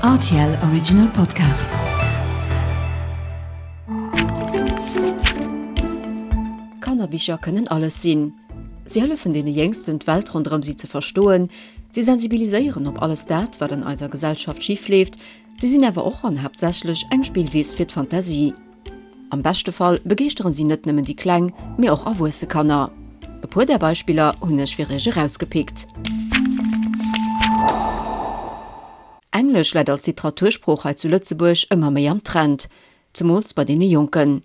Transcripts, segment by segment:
Rtl Original Podcast. Kannerbicher kënnen alles sinn. Si hëllefen deene Jéngsten, d'Welt ronderëm si ze verstoen, si sensibiliséieren op alles dat, wat an eiser Gesellschaft schif leeft, si sinn awer och an haaptsächlech eng Spillwiss fir d'Fantasie. Am beschte Fall begeeschteren si net nëmmen déi kleng, mee och erwuesse Kanner. E puer där Beispiller hunn ech fir iech erausgepickt. Englesch läit als Literatursprooch hei zu Lëtzebuerg ëmmer méi am Trend, zemools bei deene Jonken.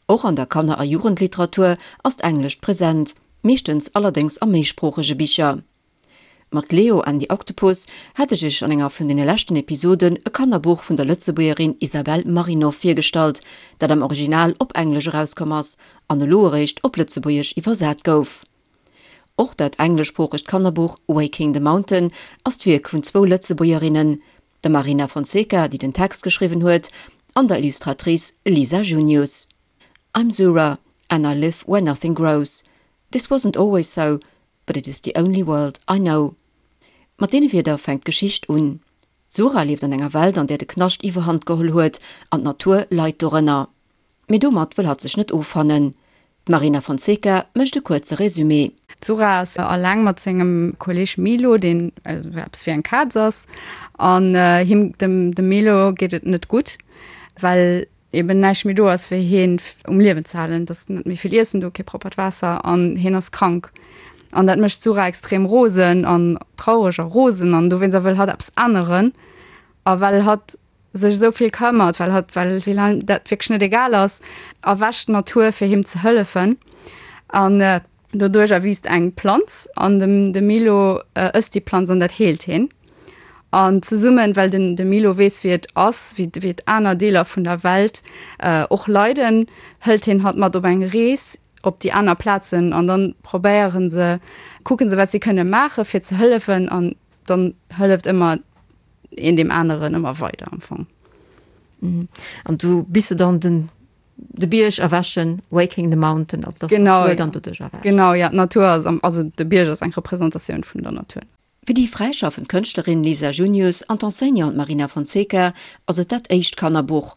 Och an der Kanner a Jugendliteratur ass d'Englescht present, meeschtens allerdéngs a méisproochege Bicher. Mat Leo and the Octopus hat ech iech an enger vun deene leschten Episoden e Kannerbuch vun der Lëtzebuergerin Isabelle Marinov virgestallt, dat am Original op Englesch erauskomm ass an elo eréischt op Lëtzebuergesch iwwersat gouf. Och dat engleschsproochegt Kannerbuch Waking the Mountain ass d'Wierk vun zwou Lëtzebuergerinnen, der Marina Fonseca, déi den Text geschriwwen huet, an der Illustratrice Lisa Junius. I'm Zura and I live where nothing grows. This wasn't always so, But it is the only world I know. Mat deene Wierder fänkt d'Geschicht un. D'Zura lieft an enger Welt, an där de Knascht iwwerhand geholl huet an d'Natur leit dorënner. Mee domat wëll hatt sech net offannen. D'Marina Fonseca mécht e kuerze Resumé. D'Zura ass alleng mat sengem Kolleeg Milo, deen eppes wéi eng Kaz ass. An him, dem Milo, geet et net gutt, well eben näischt méi do ass fir hien um Liewen ze halen, et ass net méi vill Iessen do, kee proppert Waasser an hien ass krank. An dat mécht d'Sura extrem rosen an traureg a rosen an dowéinst a wëll hatt eppes änneren a well hatt sech esou vill këmmert, well hatt well well him dat wierklech net egal ass, erwächt d'Natur fir him ze hëllefen an Doduerch erwiisst eng Planz an dem de Milo ësst déi Planz an dat heelt heen. An zesummen, well den de Milo weess wéi et ass, wéi wéi et aner Deeler vun der Welt och leiden, hëlt heen hatt mat op eng Rees op déi aner Plazen an dann probéieren se, kucken se wat si kënne maache fir ze hëllefen an dann hëlleft ëmmer een deem aneren ëmmer weider am Fong. An du bis se dann den De Bierg erwächen, Waking the Mountain, also dass d'Natur dann doduerch erwächt. Genau, ja, d'Natur ass am, also de Bierg ass eng Representatioun vun der Natur. Fir déi fräischaffend Kënschtlerin Lisa Junius an d'Enseignante Marina Fonseca ass et dat éischt Kannerbuch.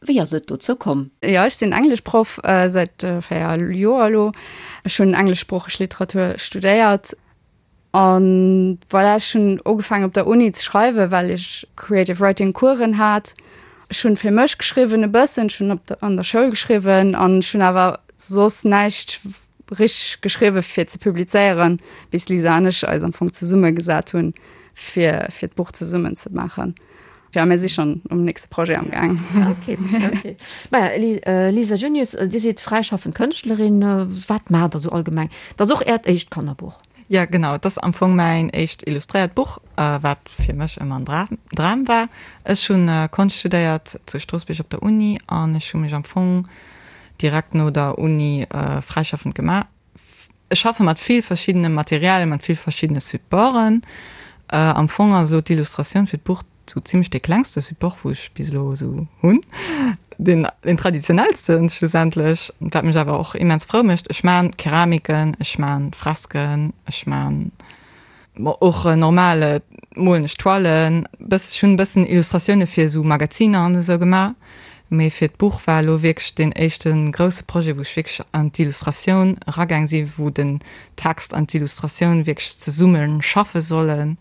Wéi ass et dozou komm? Jo, ech sinn Engleschproff säit 4 Joer elo. Ech hunn engleschsproocheg Literatur studéiert. An voilà, ech hunn ugefaangen op der Uni ze schreiwen, well ech Creative Writing Coursen hat. Ech hunn fir mech geschriwwen e bëssen, ech hunn op der an der Schoul geschriwwen an ech hunn awer soss näischt richteg geschriwwe fir ze publizéieren, bis d'Lisa an ech eis am Fong zesumme gesat hunn, fir fir d'Buch zesummen ze maachen. Jo, mir si schonn um nächste Projet am gaang. Okay, okay. Maja, Lisa Junius, Dir sidd fräischaffend Kënschtlerin. Wat maacht Der sou allgemeng? Dat ass och Äert éischt Kannerbuch. Jo, genau. Et ass am Fong mäin éischt illustréiert Buch, wat fir mech ëmmer en Dram war. Ech hu Konscht studéiert zu Stroossbuerg op der Uni an ech hu mech am Fong direkt no der Uni fräischaffend gemaach. Ech schaffe mat vill verschiddene Materialien, mat vill verschiddene Supporten. Am Fong ass elo d'Illustratioun fir d'Buch Sou zimlech dee klengste Support wou ech bis elo esou hunn, deen deen traditionellsten schlussendlech, wat mech awer och immens frou mécht. Ech maan Keramiken, ech maan Fresken, ech maan och normal molen ech Toilen, bëss ech hunn e bëssen Illustratioune fir esou Magaziner an esou gemaach, mee fir d'Buch war elo wierklech deen éischte grousse Projet wou ech wierklech an d'Illustratioun eragaang sinn, wou den Text an d'Illustratioun wierklech zesumme schaffe sollen.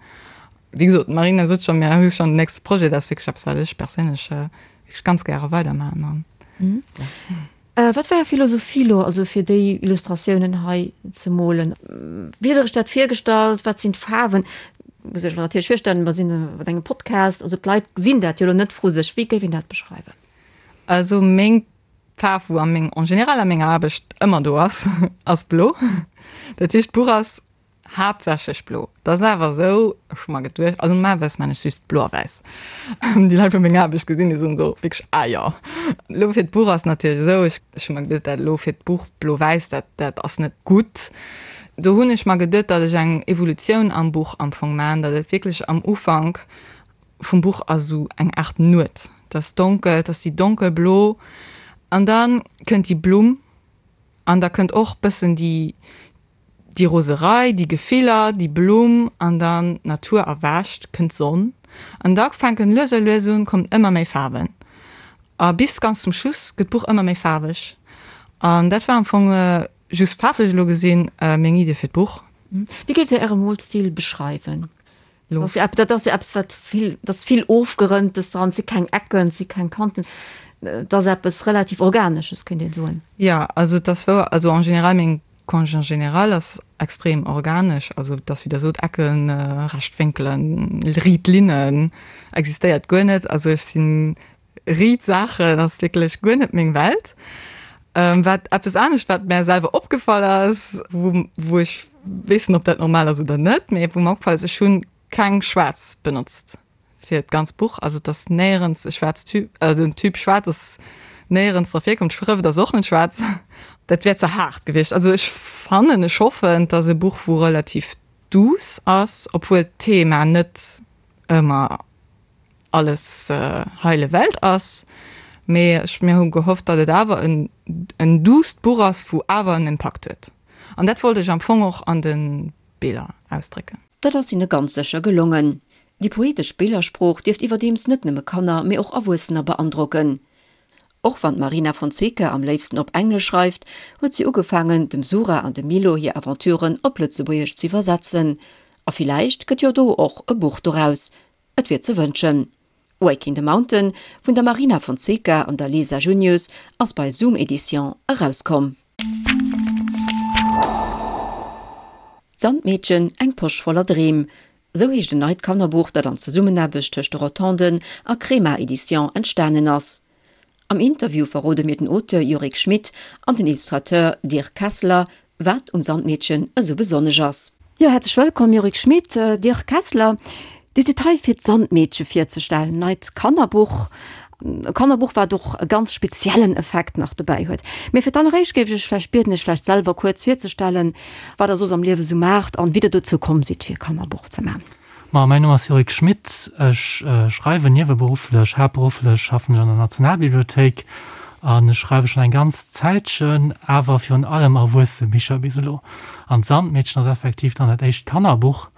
Wéi gesot, d'Marina sot schonn, mir hu schonn den nächste Projet. Dat ass wierklech eppes, wat ech perséinlech wierklech ganz gäre weidermaachen an ja. Wat war Är Philosophie elo also fir déi Illustratiounen hei ze molen? Wéi hutt Der Iech dat virgestallt? Wat sinn d'Faarwen? Muss ech mer natierlech virstellen, mer sinn mat engem Podcast, also d'Leit gesinn dat jo elo net vru sech. Wéi géif een dat beschreiwen? Also meng Faarf, wou a meng, en général a menger Aarbecht ëmmer do ass, ass blo. Dat heescht, d'Buch ass Haaptsächlech blo. Dat ass awer esou, ech hu mer geduecht, also normalerweis maan ech just blo a wäiss. Déi Leit wou meng Aarbecht gesinn, déi soen esou wierklech, ah jo. Elo fir d'Buch ass natierlech esou, ech ech hu mer geduecht, dat elo fir d'Buch blo-wäiss, dat dat ass net gutt. Do hunn ech mer geduet, datt ech eng Evolutioun am Buch am Fong maan, datt et wierklech am Ufank vum Buch ass esou eng Aart Nuet, et ass donkel, et ass déi donkelblo an da kënnt déi Blumm an da kënnt och bëssen déi Déi Roserei, déi Gefiller, déi Blumm an dann d'Natur erwächt, kënnt d'Sonn. An da fänken lues a lues un, kommen ëmmer méi Faarwen. A bis ganz zum Schluss gëtt d'Buch ëmmer méi faarweg. An dat war am Fong, just faarflech elo gesinn, meng Idee fir d'Buch. Wéi géift Dir Äre Molstil beschreiwen? Dat ass jo eppes, wat vill, dat ass vill Ofgerënntes dran, et si keng Ecken, et si keng Kanten, et ass eppes relativ Organesches, kéint een soen. Jo, also et ass wouer, also en général meng Konscht en général ass extrem organesch, also et ass wéi Der sot, Ecken, recht Wénkelen, riit Linnen existéiert guer net, also ech sinn Riit Saachen ass wierklech guer net meng Welt. Wat eppes anescht wat mär selwer opgefall ass, wou wou ech weess net ob dat normal ass oder net, mee wou mer opgefall ass, ech hunn keng schwaarz benotzt fir d'ganz Buch. Also et ass néierens e schwaarz Typ, also den Typ schwaarz ass néierens dra virkomm, d'Schrëft ass och net schwaarz. Dat wär ze haart gewiescht. Also ech fannen, ech hoffen, et ass e Buch wou relativ douce ass, obwuel d'Thema net ëmmer alles heile Welt ass, mee ech mir hu gehofft, datt et awer en en duusst Buch ass, wou awer en Impakt huet. An dat wollt ech am Fong och an de Biller ausdrécken. Dat ass hinne ganz sécher gelongen. Déi poetesch Billersprooch dierft iwwerdeems net nëmme Kanner, mee och Erwuessener beandrocken. Och wann d'Marina Fonseca am léifsten op Englesch schreift, huet si ugefaangen, dem Sura an dem Milo hir Aventuren op Lëtzebuergesch z'iwwersetzen. A villäicht gëtt jo do och e Buch doraus. Et wier ze wënschen. Waking the Mountain vun der Marina Fonseca an der Lisa Junius ass bei Zoom Edition erauskomm. D'Sandmeedchen, eng Posch voller Dreem, sou heescht en neit Kannerbuch, dat an Zesummenaarbecht tëscht de Rotonden a Crema Edition entstanen ass. Am Interview verrode mir den Auteur Yorick Schmit an den Illustrateur Dirk Kessler, wat um Sandmeedchen esou besonnesch ass. Jo, häerzlech wëllkomm Yorick Schmit, Dirk Kessler. Dir sidd hei fir d'Sandmeedche virzestellen, neit Kannerbuch. E Kannerbuch wat och e ganz speziellen Effekt nach dobäi huet. Mee fir d'alleréischt géif ech iech vläicht bieden, iech vläicht selwer kuerz virzestellen, wat der soss am Liewe sou maacht an wéi der dozou komm sidd fir e Kannerbuch ze man. Ma mäin Numm ass Yorick Schmit, ech schreiwen nieweberufflech, haaptberufflech schaffen ech an der Nationalbibliothéik an ech schreiwe schonn eng ganz Zäitchen, awer virun allem erwuesse Bicher bis elo. An d'Sandmeedchen ass effektiv dann dat éischt Kannerbuch,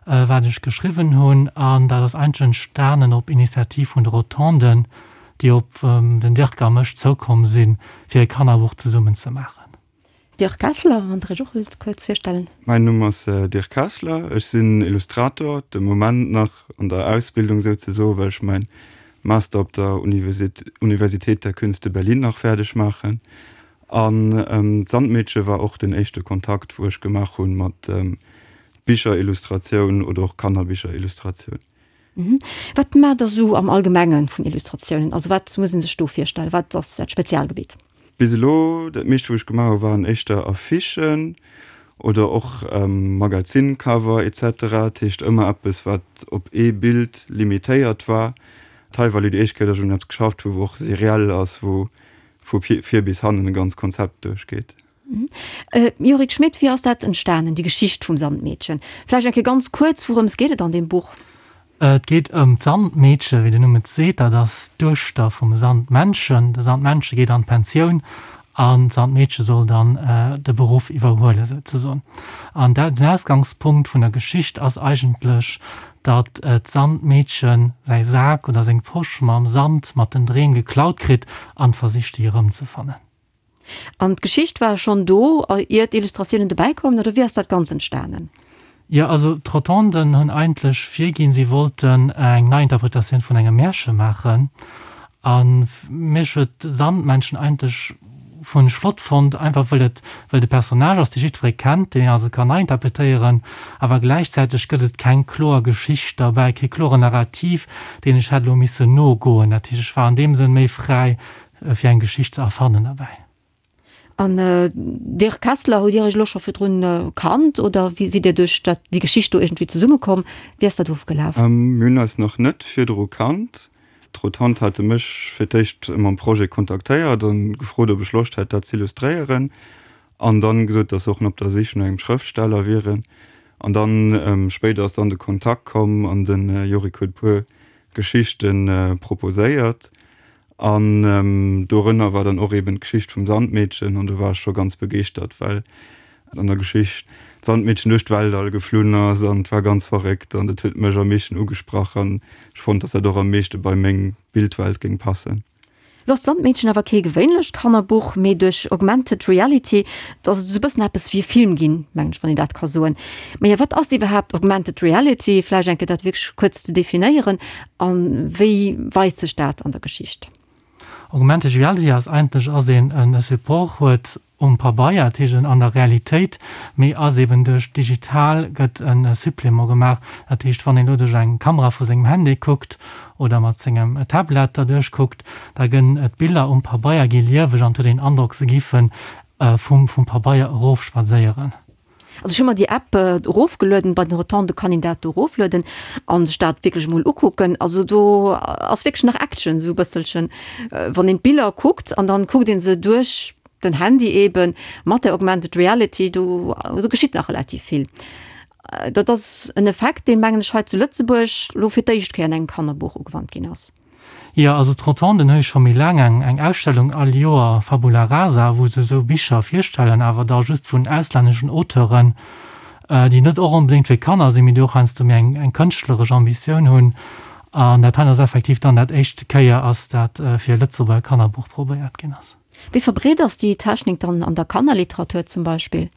wat ech geschriwwen hunn an dat ass eigentlech entstanen op Initiativ vun de Rotonden, déi op den Dirk a mech zoukomm sinn, fir e Kannerbuch zesummen ze maachen. Dirk Kessler, wann Der Iech och wëllt kuerz virstellen. Mäin Numm ass Dirk Kessler, ech sinn Illustrator, de Moment nach an der Ausbildung souzesoen, well ech mäin Master op der Universität der Künste Berlin nach fäerdeg maachen. An d'Sandmeedche war och den éischte Kontakt, wou ech gemaach hunn mat Bicherillustratioun oder och Kannerbicherillustratioun. Wat maacht Der sou am Allgemengen vun Illustratiounen? Also wat muss een sech do virstellen? Wat ass Äert Spezialgebitt? Bis elo, dat meescht wou ech gemaach hu waren éischter Affichen oder och Magazincover etc. Dat heescht ëmmer eppes wat op ee Bild limitéiert war. Hei war elo déi éischt Kéier, datt ech un eppes geschafft hu wou och seriell ass, wou vu vir bis hannen e ganz Konzept duerchgeet. Yorick Schmit, wéi ass dat entstanen, déi Geschicht vum Sandmeedchen? Vläicht eng Kéier ganz kuerz, wourëms geet et an deem Buch? Et geet ëm d'Sandmeedche, wéi den Numm et seet. Dat ass d'Duechter vum Sandmännchen. De Sandmännche geet an d'Pensioun an d'Sandmeedche soll dann de Beruff iwwerhuelen, souzesoen. An den Ausgangspunkt vun der Geschicht ass eigentlech, datt d'Sandmeedche säi Sak oder seng Posch mam Sand mat den Dreem geklaut kritt an versicht, déi erëmzefannen. An d'Geschicht war schonn do, ier d'Illustratiounen dobäi koumen, oder wéi ass dat Ganzt entstanen? Jo, also d'Rotonden hunn eigentlech virginn, si wollten eng Neiinterpretatioun vun engem Märche maachen. A mech huet Sandmännchen eigentlech hunn ech flott fonnt, einfach wëll et, wëll de Personnage ass, dee jiddweree kennt, deen een also kann neiinterpretéieren, awer gläichzäiteg gëtt et keng kloer Geschicht derbäi, kee kloren Narrativ, deen ech hätt elo missen nogoen. Dat heescht, ech war an deem Sënn méi fräi, fir eng Geschicht ze erfannen derbäi. An Dirk Kessler, hutt Dir Iech elo scho virdrun kannt oder wéi sidd Dir duerch dat, déi Geschicht do iergendwéi zesummekomm? Wéi ass dat ofgelaf? Mir hunn eis nach net virdru kannt. D'Rotonde hate mech fir d'éischt mam Projet kontaktéiert an gefrot, ob ech Loscht hätt, dat z'illustréieren. An dann gesot, dass se och op der Sich no engem Schrëftsteller wieren. An dann spéider ass dann de Kontakt komm an de Yorick huet e puer Geschichte proposéiert. An dorënner war dann och eben d'Geschicht vum Sandmeedchen an do war ech scho ganz begeeschtert, well. An der Geschicht d'Sandmeedchen duerch d'Weltall geflunn ass an et war ganz verréckt an dat huet mech am meeschten ugesprach an ech fonnt, dass dat och am meeschte bei meng Bildwelt géing passen. Lo ass d'Sandmeedchen awer kee gewéinlecht Kannerbuch, mee duerch Augmented Reality ass et esou e bëssen eppes wéi e Film ginn, mengen ech, wann een dat ka soen. Maja, wat ass iwwerhaapt Augmented Reality? Vläicht eng Kéier dat wierklech kuerz ze definéieren a wéi weist sech dat an der Geschicht? Augmented Reality ass eigentlech, ass een e Support huet um Pabeier, dat heescht an der Realitéit, mee ass eben duerch digital gëtt e Supplément gemaach. Dat heescht, wann een elo duerch eng Kamera vu sengem Handy kuckt oder mat sengem Tablet derduerch kuckt, da gënn d'Biller um Pabeier gi lieweg an et huet een den Androck, se géife vum Pabeier erofspadséieren. Also ech hu mer déi App erofgelueden, bei den Rotonde kann een dat do eroflueden an sech dat wierklech emol ukucken. Also do ass wierklech nach Action esou e bësselchen, wann een d'Biller kuckt an dann kuckt een se duerch den Handy eben mat der Augmented Reality, do do geschitt nach relativ vill. Dat ass en Effekt, deen, mengen ech, hei zu Lëtzebuerg elo fir d'éischt Kéier an engem Kannerbuch ugewannt ginn ass. Jo, also d'Rotonden hu jo scho méi laang eng eng Ausstellung all Joer, Fabula Rasa, wou se esou Bicher virstellen, awer da just vun auslänneschen Auteuren, déi net och onbedéngt fir Kanner sinn, mee déi och heiansdo méi eng eng kënschtleresch Ambitioun hunn. An dat hei ass effektiv dann dat éischte Kéier ass, dat fir e Lëtzebuerger Kannerbuch probéiert ginn ass. Wéi verbreet ass déi Technik dann an der Kannerliteratur zum Beispill?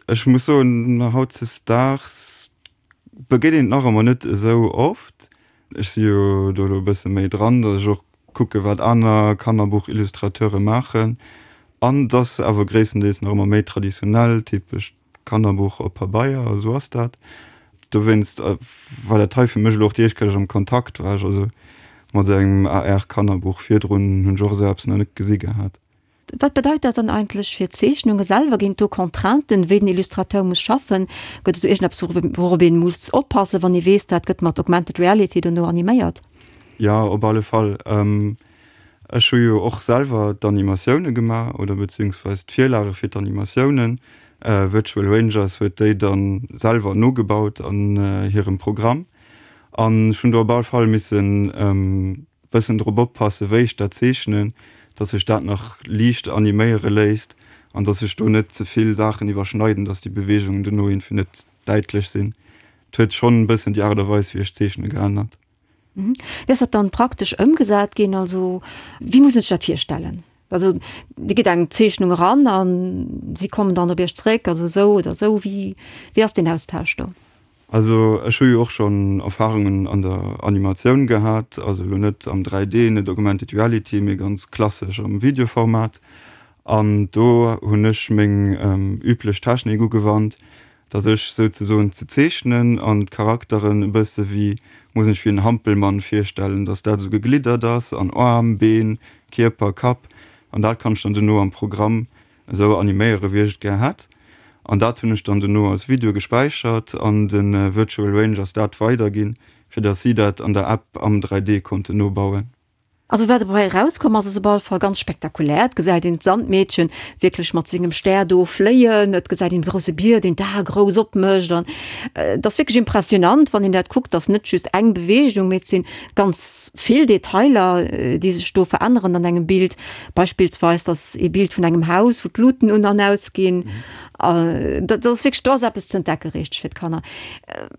Ech muss soen, hautzesdaags begéint een et nach ëmmer net esou oft. Ech si jo do elo e bësse méi dran, datt ech och kucke wat aner Kannerbuchillustrateure maachen. An et ass awer gréisstendeels nach ëmmer méi traditionell, typescht Kannerbuch op Pabeier, esou ass dat. Dowéinst war dat hei fir mech elo och déi éischt Kéier, datt ech am Kontakt war, also mat esou engem AR-Kannerbuch. Virdrun hunn ech och esou eppes nach net gesi gehat. Wat bedeit dat dann eigentlech fir d'Zeechnunge selwer? Ginn et do Contrainten, wéi den Illustrateur muss schaffen? Gëtt et do iergendeppes, wourop ee muss oppassen, wann ee weess, dat gëtt mat Augmented Reality dono animéiert? Jo, op alle Fall. Ech hu jo och selwer d'Animatioune gemaach oder beziehungsweis d'Virlage fir d'Animatiounen. Virtual Rangers huet déi da selwer nogebaut an hirem Programm. An ech hunn do op alle Fall missen Bëssen drop oppassen wéi ech dat zeechnen, dass sech dat nach liicht animéiere léisst an dass sech do net ze vill Saachen iwwerschneiden, dass déi Beweegungen dono iergendwéi net däitlech sinn. Et huet schonn e bëssen déi Aart a Weis wéi ech zeechne geännert. Wéi ass dat dann praktesch ëmgesat ginn? Also wéi muss een sech dat virstellen? Also Dir gitt eng Zeechnung eran a si kommen dann op Iech zréck, also esou oder esou. Wéi ass deen Austausch do? Also ech hu jo och schonn Erfahrungen an der Animatioun gehat, also elo net am 3D, net Augmented Reality, mee ganz klassesch am Videoformat. An do hunn ech meng üblech Technik ugewannt, dass ech souzesoen ze zeechnen an d'Charakteren e bësse wéi, muss een sech wéi en Hampelmann virstellen, dass dat esou gegliddert ass an Aarm, Been, Kierper, Kapp an dat kann ech dann dono am Programm esou animéiere wéi ech et gär hätt an dat hunn ech dann dono als Video gespäichert an de Virtual Rangers dat weiderginn, fir dass si dat an der App am 3D konnten nobauen. Also wat dobäi erauskomm ass, ass op alle Fall ganz spektakulär. Et gesäit een d'Sandmeedchen wierklech mat sengem Stär do fléien, et gesäit een de grousse Bier, deen d'Ae grouss opmécht an et ass wierklech impressionant, wann een dat kuckt. Et ass net just eng Beweegung, mee et sinn ganz Vill Detailer, déi sech do veränneren an engem Bild, beispillsweis dass ee Bild vun engem Haus, wou d'Luten un an aus ginn. Dat ass wierklech, do ass eppes ze entdecke richteg fir d'Kanner.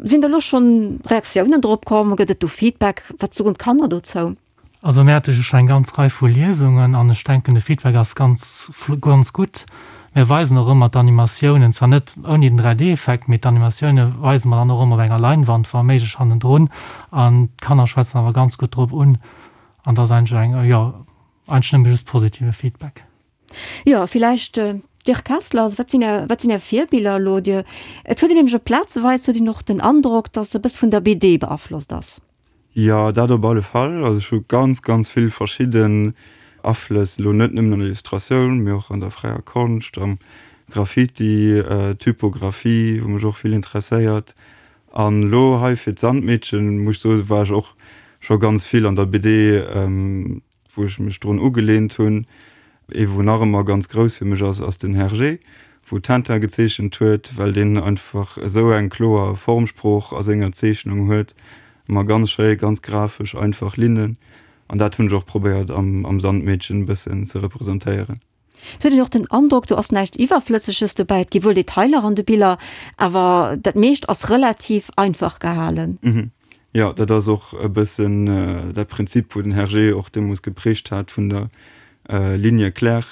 Sinn der elo schonn Reaktiounen drop komm? Gëtt et do Feedback? Wat soen d'Kanner dozou? Also mir hate jo scho eng ganz Rei vu Liesungen an ech denken de Feedback ass ganz ganz gutt. Mir weisen och ëmmer d'Animatiounen, zwar net ouni den 3D-Effekt, mee d'Animatioune weise mer dann och ëmmer op enger Leinwand, wa méiglech hannendrun. An d'Kanner schwätzen awer ganz gutt drop un. An dat ass eigentlech eng, jo, eigentlech nëmme just positive Feedback. Jo, villäicht Dirk Kessler, also wat sinn Är, wat sinn Är Virbiller elo? Dir, et huet een nämlech op plazeweis huet een och den Androck, datt e bësse vun der BD beaflosst ass. Jo, dat op alle Fall. Also ech hu ganz, ganz vill verschidden Aflëss, elo net nëmmen an der Illustratioun, mee och an der fräier Konscht, am Graffiti, Typographie, wou mech och vill interesséiert. An elo hei fir d'Sandmeedchen, muss ech soen, war ech och scho ganz vill an der BD. Wou ech mech drun ugeleent hunn, ee wou nach ëmmer ganz grouss fir mech ass, ass den Hergé, wou Tintin gezeechent huet, well deen einfach esou eng kloer Formsprooch a senger Zeechnung huet, ëmmer ganz schéi, ganz grafesch, einfach Linnen. An dat hunn ech och probéiert am am Sandmeedchen e bëssen ze representéieren. Et huet een och den Androck, do ass näischt Iwwerflësseges dobäi. Et gi wuel Detailer an de Biller, awer dat meescht ass relativ einfach gehalen. Jo, dat ass och e bëssen dat Prinzip, wou den Hergé och deemools geprägt hat vun der Ligne claire,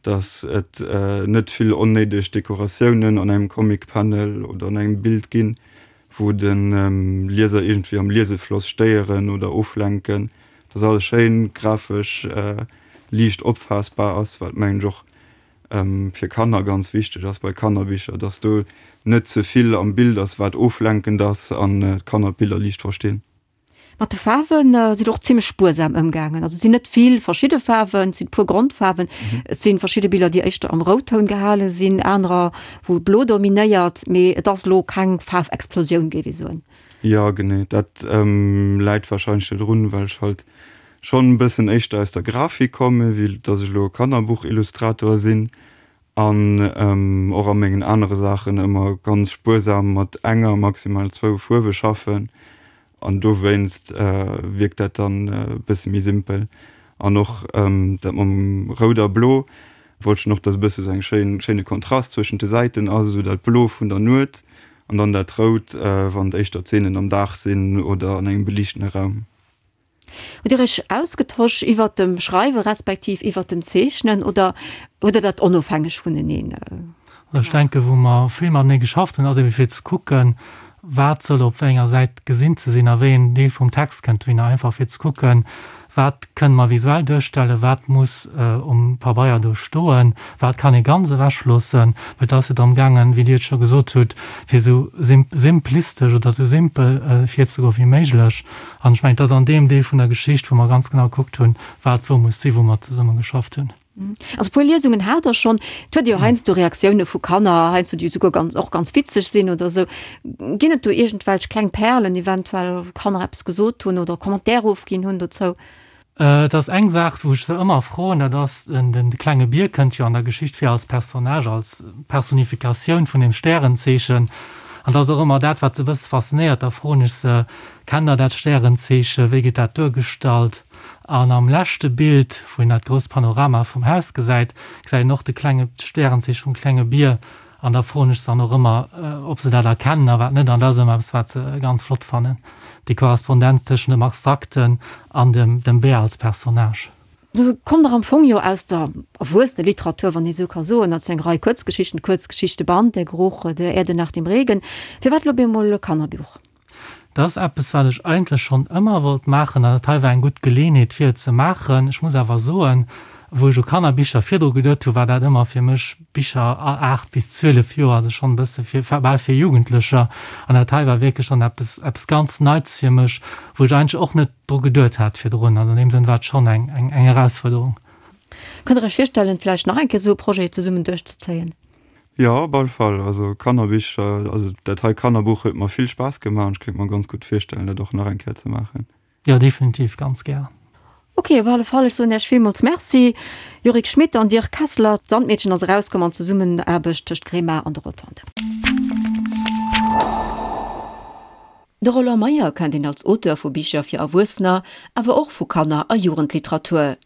dass et net vill onnéideg Dekoratiounen an engem Comic-Panel oder an engem Bild ginn, wou de Lieser iergendwéi am Liesefloss stéieren oder oflenken, dass alles schéin grafesch liicht opfaassbar ass, wat mengen ech och fir Kanner ganz wichteg ass bei Kannerbicher, dass do net ze vill am Bild ass, wat oflenkend ass an d'Kanner d'Biller liicht verstinn. Mat de Faarwen sidd Der och zimmlech spuersam ëmgaangen. Also et sinn net vill verschidde Faarwen, et sinn e puer Grondfaarwen. Et si verschidde Biller, déi éischter am Routtoun gehale sinn, anerer, wou Blo dominéiert. Mee et ass elo keng Faarfexplosioun, géif ee soen. Jo, genee. Dat läit warscheinlech dodrun, well ech halt schonn e bëssen éischter aus der Grafik kommen, wéi dass ech elo e Kannerbuchillustrator sinn. An och a mengen anere Saachen ëmmer ganz spuersam mat enger, maximal zwou Fuerwe schaffen. An dowéinst wierkt dat dann e bësse méi simpel. An och dat mam Rout a Blo wollt ech dann och, dass e bësse sou eng schéin, schéine Kontrast zwëschent de Säiten ass, esou dat Blo vun der Nuet an dann dat Rout, wann et éischter Zeenen am Dag sinn oder an engem beliichtene Raum. Hutt Dir Iech ausgetosch iwwert dem Schreiwe respektiv iwwert dem Zeechnen oder hutt Der dat onofhängeg vuneneen Also ech denken, wou mer vill matenee geschafft hunn, ass ebe fir ze kucken, wat soll op wéi enger Säit gesinn ze sinn a wéi een Deel vum Text kënnt dohinner, einfach fir ze kucken, wat kënne mer visuell duerstellen, wat muss um Pabeier do stoen, wat kann ee ganz ewechloossen, well et ass jo drëm gaangen, wéi Dir et scho gesot hutt, fir esou simplistesch oder esou simpel virzegoe wéi méiglech. An ech mengen, et ass an deem Deel vun der Geschicht, wou mer ganz genau gekuckt hunn, wat wou muss sinn, wou mer zesumme geschafft hunn. Also e puer Liesungen hat Der schonn. Et huet ee jo heiansdo Reaktioune vu Kanner, heiansdo déi esouguer ganz, och ganz witzeg sinn oder esou. Ginn et do iergendwelch kleng Perlen eventuell, wou Kanner eppes gesot hunn oder Commentaire ofginn hunn dozou? Et ass eng Saach, wou ech se ëmmer froen, dat ass, den klenge Bier kënnt jo an der Geschicht vir als Personnage, als Personifikatioun vun dem Stärenzeechen. An dat ass och ëmmer dat, wat se e bësse faszinéiert. Da froen ech se, Kennt der dat Stärenzeechen? Wéi gëtt dat duergestallt? An am leschte Bild, wou een dat grousst Panorama vum Haus gesäit, gesäit een och de klenge, d'Stärenzeeche vum klenge Bier. An da froen ech se dann och ëmmer, ob se dat erkennen a wat net. An dat ass ëmmer eppes, wat se ganz flott fannen, déi Korrespondenz tëschent dem Abstrakten an dem, dem Bär als Personnage. Du kommt der am Fong jo aus der Erwuesseneliteratur, wann ee sou ka soen, also eng Rei Kuerzgeschichten, Kuerzgeschichteband, Der Geruch der Erde nach dem Regen. Firwat elo op eemol e Kannerbuch? Dat ass eppes, wat ech eigentlech schonn ëmmer wollt maachen an dat hei war eng gutt Geleeënheet, fir et ze maachen. Ech muss awer soen, wou ech u Kannerbicher virdru geduet hu, war dat ëmmer fir mech Bicher a 8 bis 12 Joer, also schonn e bësse fir, bal fir Jugendlecher. An dat hei war wierklech dann eppes, eppes ganz Neits fir mech, wou ech eigentlech och net dru geduet hat virdrun. Also an deem Sënn war et schonn eng, eng, eng Erausfuerderung. Kënnt Der Iech virstellen, vläicht nach eng Kéier esou e Projet zesummen duerchzezéien? Jo, op alle Fall. Also Kannerbicher, also dat hei Kannerbuch huet mer vill Spaass gemaach an ech kéint mer ganz gutt virstellen, dat och nach eng Kéier ze maachen. Jo, definitiv, ganz gär. Ok, op alle Fall, ech soen Iech villmools Merci, Yorick Schmit an Dirk Kessler. D'Sandmeedchen ass erauskomm an Zesummenaarbecht tëscht Grema an de Rotonde. De Roland Meyer kennt een als Auteur vu Bicher fir Erwuessener, awer och vu Kanner a Jugendliteratur.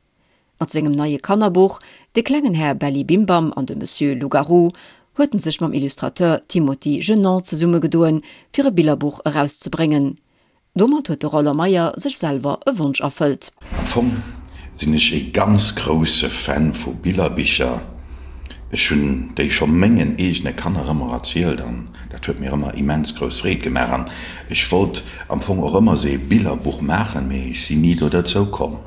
Mat sengem neie Kannerbuch De klengen Här Belli Bimbam an de Monsieur Loup-Garou huet en sech mam Illustrateur Timothy Genant zesummegedoen, fir e Billerbuch erauszebréngen. Domat huet de Roland Meyer sech selwer e Wonsch erfëllt. Am Fong sinn ech ee ganz grousse Fan vu Billerbicher. Ech hunn déi scho mengen eegene Kanner ëmmer erzielt an dat huet mir ëmmer immens grouss Freed gemaach. An ech wollt am Fong och ëmmer sou ee Billerbuch maachen, mee ech sinn ni do derzou komm.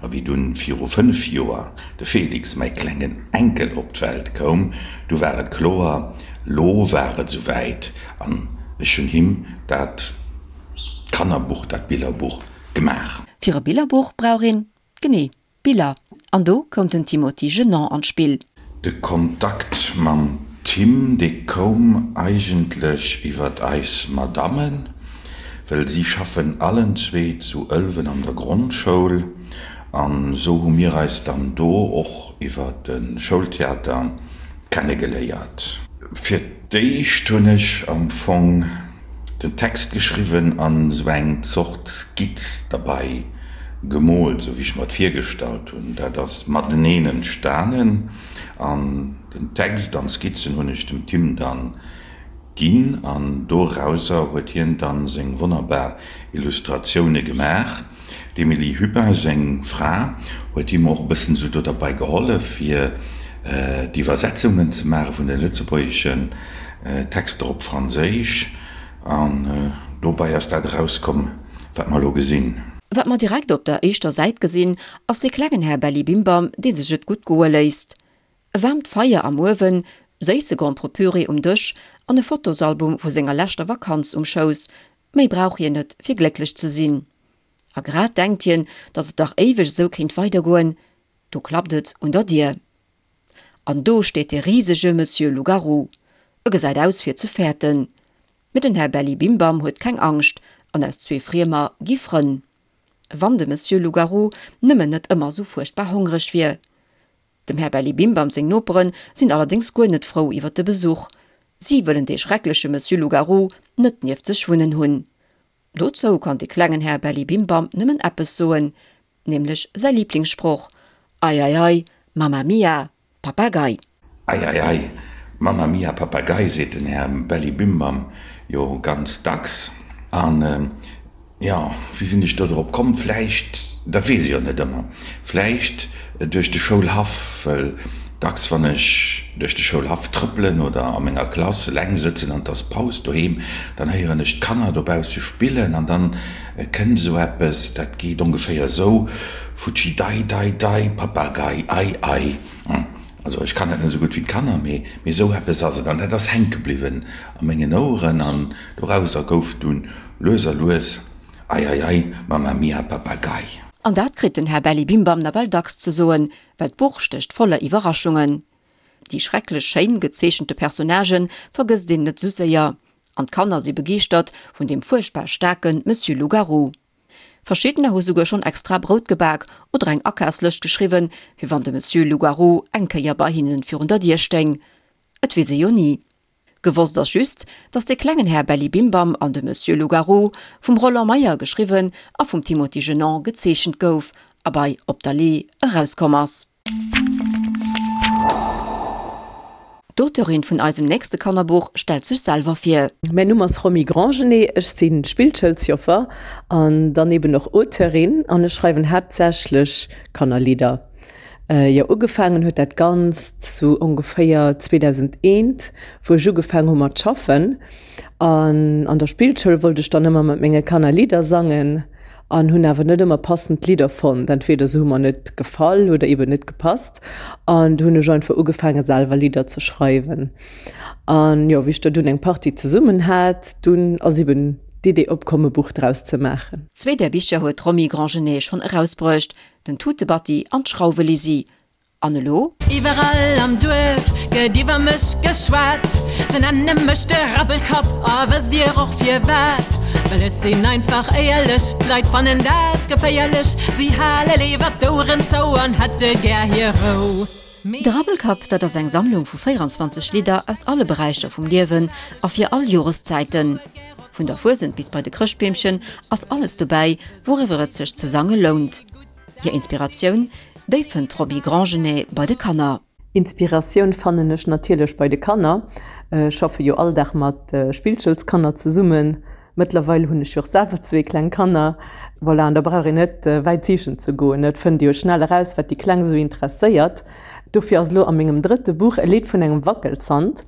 A wéi dunn viru 5 Joer de Felix, mäi klengen Enkel, op d'Welt koum, du war et kloer, lo war et sou wäit an ech hunn him dat Kannerbuch, dat Billerbuch gemaach. Fir e Billerbuch brauch een, genee, Biller. An do koum den Timothy Genant an d'Spill. De Kontakt mam Tim, dee koum eigentlech iwwert eis Madammen, well si schaffen allen zwee zu Ëlwen an der Grondschoul an esou hu mir eis dann do och iwwer de Schoultheater kennegeléiert. Fir d'éischt hunn ech am Fong den Text geschriwwen an esou eng Zort Skizz derbei. gemoolt, sou wéi ech mer et virgestallt hunn. Dat ass mateneen entstanen an den Text an d'Skizzen hunn ech dem Tim dann ginn an dorauser huet hien dann seng wonnerbar Illustratioune gemaach. D'Emilie Hubin, seng Fra, huet him och e bëssen esou do derbei gehollef fir d'Iwwersetzungen ze maache vun de lëtzebuergeschen Texter op Franséisch an dobei ass dat erauskomm wat mer elo gesinn. Wat mer direkt op der éischter Säit gesinn, ass dee klengen Här Bellibimbam, dee sech et gutt goe léisst. E waarmt Feier am Uewen, séisse Gromperepüree um Dësch an e Fotosalbum vu senger leschter Vakanz um Schouss, méi brauch hien net fir glécklech ze sinn. A grad denkt hien, datt et dach éiweg esou kéint weidergoen, do klappt et un der Dier. An do steet dee risege Monsieur Loup-Garou. E gesäit aus fir ze fäerten. Mee den Här Bellibimbam huet keng Angscht an aus zwee Friemer gi Frënn. Wann de Monsieur Loup-Garou nëmmen net ëmmer esou fuerchtbar hongreg wier. Dem Här Bellibimbam seng Nopere sinn allerdéngs guer net frou iwwer de Besuch. Si wëllen dee schreckleche Monsieur Loup-Garou net nieft sech wunnen hunn. Dozou kann de klengen Här Bellibimbam nëmmen eppes soen, nämlech säi Liblingssproch, Ei, ei, ei, Mamma mia, Papagei! Ei, ei, ei, Mamma mia, Papagei, seet den Här Bellibimbam jo ganz dacks. An, jo, wéi sinn ech do drop komm? Vläicht, dat weess ech jo net ëmmer, vläicht duerch de Schoulhaff, well dacks, wann ech duerch de Schoulhaff trëppelen oder a menger Klass eleng sëtzen an 't ass Paus doheem, dann héieren ech d'Kanner dobausse spillen an dann Et kënnt esou eppes, dat geet ongeféier esou, Futschi dei dei dei, Papagei ei ei. Also ech kann dat net esou gutt wéi d'Kanner, mee mee esou eppes ass et. An dat ass hänke bliwwen a mengen Oueren an dorauser gouf dunn lues a lues Ei ei ei, Mamma mia, Papagei. An dat kritt den Här Bellibimbam nawell dacks ze soen, well d'Buch stécht voller Iwwerraschungen. Déi schrecklech schéin gezeechente Personnagë vergësst een net esou séier. An d'Kanner si begeeschtert vun deem fuerchtbar staarke Monsieur Loup-Garou. Verschiddener hu souguer schonn extra Brout gebak oder eng Akafslëscht geschriwwen, fir wann de Monsieur Loup-Garou eng Kéier bei hinnen virun der Dier stéing. Et weess ee jo ni. Gewosst ass just, dass de klengen Här Bellibimbam an de Monsieur Loup-Garou vum Roland Meyer geschriwwen a vum Timothy Genant gezeechent gouf a bei Op der Lee erauskomm ass. D'Auteurin vun eisem nächste Kannerbuch stellt sech selwer vir. Mäin Numm ass Romy Grandgenet, ech si Spillschoulsjoffer an dann eben och Auteurin an ech schreiwen haaptsächlech Kannerlidder. Jo, ugefaangen huet dat Ganzt sou ongeféier 2001, wou ech ugefaangen hu mat schaffen. An an der Spillschoul wollt ech dann ëmmer mat menge Kanner Lidder sangen an hunn awer net ëmmer passend Lidder fonnt. Entweder se hu mer net gefall oder eben net gepasst. An du hunn ech einfach ugefaange selwer Lidder ze schreiwen. An jo, wéi ech der dunn eng Partie zesummen hat, dunn ass eben d'Idee opkomm e Buch draus ze maachen. Zwee där Bicher huet d'Romy Grandgenet schonn erausbruecht, den Tutebatti an d'Schrauwelisi. An elo? Iwwerall am Duerf gëtt iwwer mech geschwat, se nenne mech de Rabbelkapp, a wësst dir och firwat? Well ech sinn einfach éierlech, d'Leit fannen dat geféierlech, si hale léiwer d'Oueren zou an hätte gär hir Rou. Mee. De Rabbelkapp, dat ass eng Sammlung vu 24 Lidder aus alle Beräicher vum Liewen a fir all Joreszäiten. Vun der Fuesent bis bei de Chrëschtbeemchen ass alles dobäi, wouriwwer et sech ze sange lount. Hir Inspiratioun, déi fënnt d'Roby Grandgenet bei de Kanner. Inspiratioun fannen ech natierlech bei de Kanner. Ech schaffe jo all Dag mat Spillschoulskanner zesummen. Mëttlerweil hunn ech jo och selwer zwee kleng Kanner. Voilà, an da brauch een net wäit sichen ze goen, et fënnt ee jo schnell eraus, wat déi Kleng esou interesséiert. Dofir ass elo a mengem drëtte Buch e Lidd vun engem Wackelzant.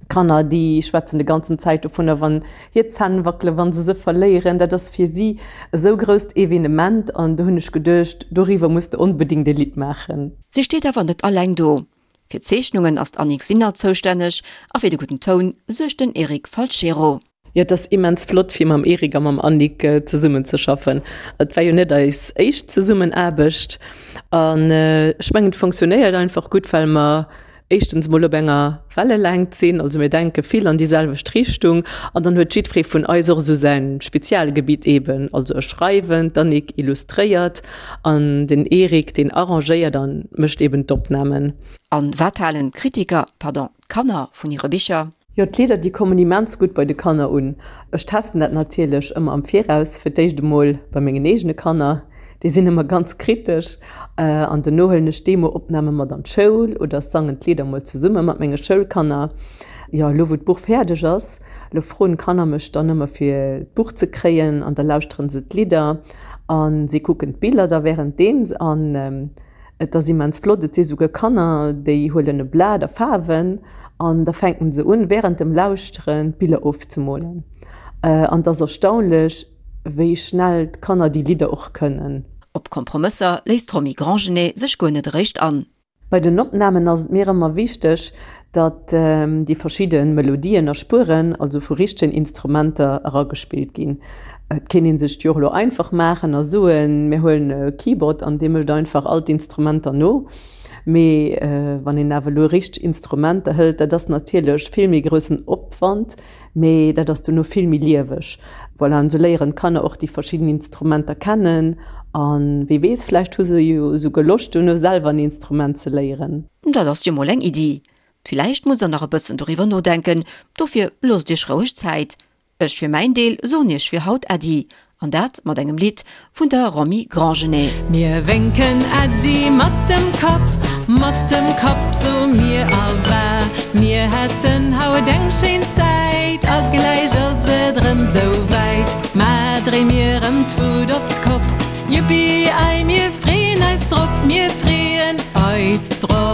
Kanner, déi schwätzen de ganzen Zäit dovunner, wann hir Zänn wackelen, wa se se verléieren. Dat ass fir si esou grousst Evenement an do hunn ech geduecht, doriwwer muss de onbedéngt e Lidd maachen. Si steet awer net alleng do. Fir d'Zeechnungen ass d'Annick Sinner zoustänneg a fir de gudden Toun suergt den Eric Falchero. Jo, et ass immens flott fir mam Eric a mam Annick zesummen ze schaffen. Et war jo net eis éischt Zesummenaarbecht an ech mengen et fonctionnéiert einfach gutt, well mer éischtens mol op enger Wellelängt sinn, also mir denke vill an déi selwecht Richtung an dann huet jiddweree vun eis och esou säin Spezialgebitt eben, also ech schreiwen, d'Annick illustréiert an den Eric deen arrangéiert an mécht eben d'Opnamen. An wat halen d'Kritiker, pardon, d'Kanner vun hire Bicher? Jo, d'Lieder déi kommen immens gutt bei de Kanner un. Ech testen dat natierlech ëmmer am Viraus, fir d'éischt emol bei mengen eegene Kanner. Déi sinn ëmmer ganz kritesch. An dono huelen ech Demo-Opname mat an d'Schoul oder sangen d'Lidder mol zesumme mat menge Schoulkanner. Jo, elo wou d'Buch fäerdeg ass, elo froen d'Kanner mech dann ëmmer fir d'Buch ze kréien an da lauschteren se d'Lidder a si kucken d'Biller da wärenddeems an et ass immens flott. Et si souguer Kanner, déi huelen e Blat a Faarwen an da fänken se un wärend dem Lauschteren d'Biller ofzemolen an et ass erstaunlech, wéi schnell d'Kanner déi Lidder och kënnen. Op Kompromësser léisst d'Romy Grandgenet sech guer net eréischt an. Bei den Opnamen ass et mir ëmmer wichteg, datt déi verschidde Melodien a Spueren, also vu richtegen Instrumenter, eragespillt ginn. Et kéint ee sech d'Jo elo einfach maachen a soen, mir huelen e Keyboard an dee mécht einfach all d'Instrumenter no. Mee wann een awer elo richteg Instrumenter hëlt, dat ass natierlech vill méi groussen Opwand, Mee dat ass dono vill méi lieweg. Voilà, an esou léieren d'Kanner och déi verschidden Instrumenter kennen an wie weess, vläicht hu se jo esouguer Loscht dono selwer en Instrument ze léieren. Dat ass jo mol eng Iddi. Villäicht musst der nach e bëssen doriwwer nodenken, dofir loosst iech roueg Zäit. Ech fir mäin Deel soen iech fir haut Äddi, an dat mat engem Lidd vun der Romy Grandgenet. Mir wénken Äddi mat dem Kapp, mat dem Kapp soe mir Awa. Mir haten haut eng schéin Zäit a gläich ass et erëm sou wäit. Mä dréi mir erëm d'Wut op d'Kopp, Juppi ei, mir freeën eis drop, mir freeën eis drop.